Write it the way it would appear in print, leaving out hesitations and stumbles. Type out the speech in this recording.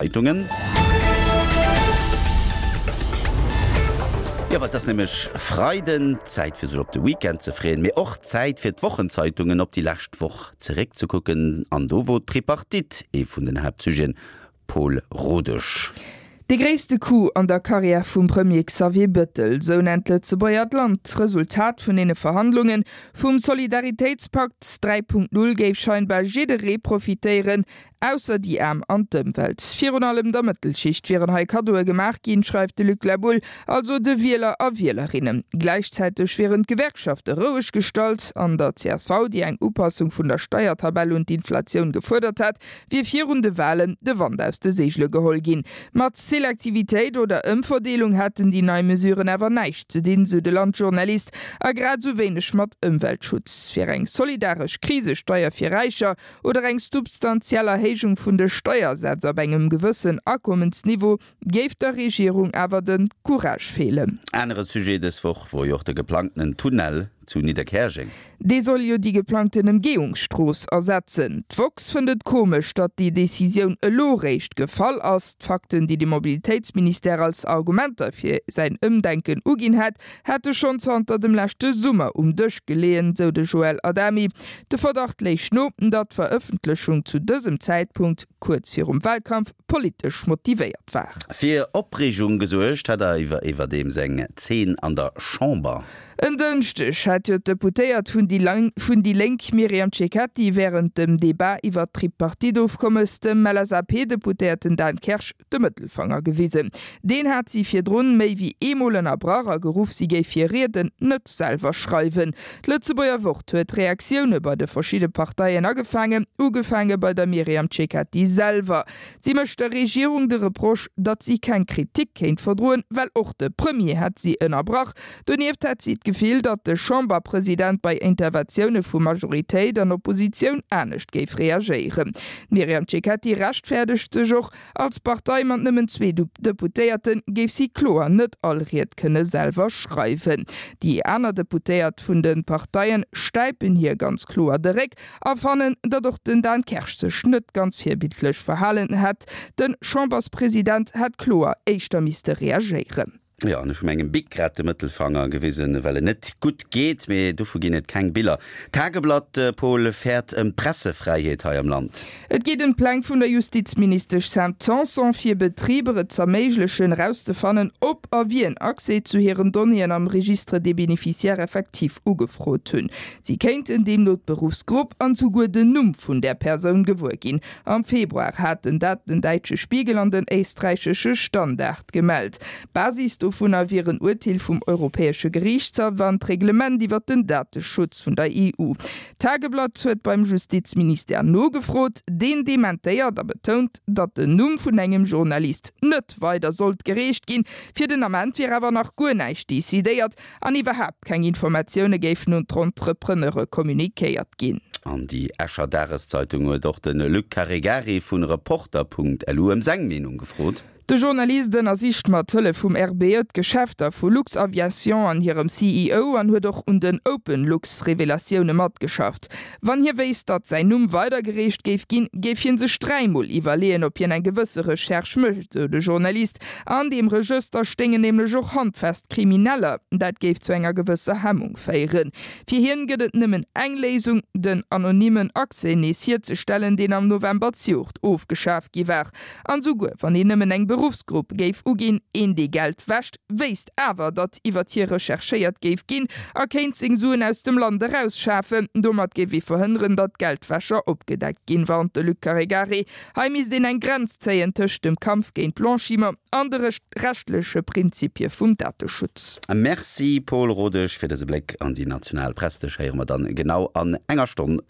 Zeitungen. Jo, well et ass nämlech Freiden, Zäit fir sech op de Weekend ze freeën, mee och Zäit fir d'Wochenzeitungen op déi lescht Woch zeréckzekucken. An do wor d'Tripartite ee vun den Haaptsujeten. Paul Rodesch. Dee gréisste Coup an der Karriär vum Premier Xavier Bettel, sou nennt d'Lëtzebuerger d'Land d'Resultat vun deene Verhandlungen. Vum Solidaritéitspakt 3.0 géif scheinbar jidderee profitéieren, Ausser déi Aarm an d'Ëmwelt. Virun allem der Mëttelschicht wieren hei Kaddoe gemaach ginn, schreift de Luc Laboulle, also de Wieler a Wielerinnen. Gläichzäiteg wieren d'Gewerkschafte roueg gestallt. An der csv, déi eng Upassung vun der Steiertabell un d'Inflatioun gefuerdert hat, wier virun de Walen de Wand aus de Seegele geholl ginn. Mat Selektivitéit oder Ëmverdeelung hätten déi nei Mesuren awer näischt ze dinn, sou de Land-Journalist, a grad esou wéineg mat Ëmweltschutz. Fir eng solidaresch Krisesteier fir Räicher oder eng substantiell Erhéijung vun de Steiersätz ab engem gewëssen Akommensniveau géif der Regierung awer de Courage feelen. Anere Sujet dës Woch wor jo och de geplangtenen Tunnel zu Nidderkäerjeng. Dee soll jo déi geplangten Emgehungsstrooss ersetzen. D'woxx fënnt et komesch, datt déi Decisioun elo réischt gefall ass. D'Fakten, déi de Mobilitéitsministère als Argumenter fir säin Ëmdenken uginn hätt, hätte schonn zanter dem leschte Summer um Dësch geleeën, sou de Joël Adami. De Verdacht léich no, datt d'Verëffentlechung zu dësem Zäitpunkt, kuerz virum Walkampf, politesch motivéiert war. Fir Opreegung gesuergt hat iwwerdeems eng Zeen an der Chamber. En Dënschdeg hat jo d'Deputéiert vun déi Lénk Myriam Cecchetti wärend dem Debat iwwert d'Tripartite-Ofkommes dem LSAP-Deputéierten Dan Kersch de Mëttelfanger gewisen. Deen hat si virdrun méi wéi eemol ënnerbrach a geruff, si géif hir Rieden net selwer schreiwen. D'Lëtzebuerger Wort huet Reaktioune bei de verschidde Parteien agefaangen, ugefaange bei der Myriam Cecchetti selwer. Si mécht der Regierung de Reproche, datt si keng Kritik kéint verdroen, well och de Premier hätt si ënnerbrach. Donieft hätt si d'Gefill, datt de Chamberpresident bei Interventioune vu Majoritéit an Oppositioun anescht géif reagéieren. D'Myriam Cecchetti rechtfäerdegt sech och, Als Partei mat nëmmen zwee Deputéierte géif si kloer net all Ried kënne selwer schreiwen. Déi aner Deputéiert vun de Parteien stäipen hir ganz kloer de Réck a fannen, datt och den Dan Kersch sech net ganz virbildlech verhalen hätt. De Chamberspresident hätt kloer éischter misste reagéieren. Jo, an ech hu mengem Bic grad de Mëttelfanger gewisen, well en net gutt geet, mee dovu ginn et keng Biller. D'Tageblatt, Paul, fäert ëm d'Pressefräiheet hei am Land. Et geet ëm d'Pläng vun der Justizministesch Sam Tanson, fir Betriber et z'erméiglechen, erauszefannen, ob a wien Accès zu hiren Donnéeën am Registre des bénéficiaires effectifs ugefrot hunn. Si kéinten deemno d'Beruffsgrupp an souguer den Numm vun där Persoun gewuer ginn. Am Februar haten dat den däitsche Spiegel an den éisträichesche Standard gemellt. Basis dovunner wier en Urteel vum Europäesche Geriichtshaff an d'Reglement iwwer den Dateschutz vun der EU. D'Tageblatt huet beim Justizministère nogefrot. Deen dementéiert a betount, datt den Numm vun engem Journalist net weider sollt gereecht ginn. Fir den Ament wier awer nach guer näischt decidéiert. An iwwerhaapt keng Informatioune géifen un d'Entrepreneure communiquéiert ginn. An déi Escher Dageszeitung huet och de Luc Caregari vu Reporter.lu ëm seng Meenung gefrot. De Journalist ënnersicht mat Hëllef vum RBE d'Geschäfter vu Luxaviation an hirem CEO an huet och un den OpenLux-Revelatioune matgeschafft. Wann hie wéisst, datt säin Numm weidergereecht géif ginn, géif hie sech dräimol iwwerleeën, ob hien eng gewësse Recherche mécht, sou de Journalist. An deem Regëster stéingen nämlech och handfest Krimineller. Dat géif zu enger gewësser Hemmung féieren. Fir hien gëtt et nëmmen eng Léisung, den anonymen Accès nees hierzestellen, deen am November zejoert ofgeschaf gi war. An souguer wann een nëmmen eng Beruffsgrupp géif uginn, een dee Geld wäscht, wéisst awer, datt iwwert hie recherchéiert géif ginn a kéint seng Suen aus dem Land erausschafen. Domat géif ee verhënneren, datt Geldwäscher opgedeckt ginn, warnt de Luc Caregari. Hei misst een eng Grenz zéien tëscht dem Kampf géint Blanchiment an de rechtleche Prinzipie vum Dateschutz. Merci Paul Rodesch fir dëse Bléck an déi national Press. Dech héiere mer dann genau an enger Stonn erëm.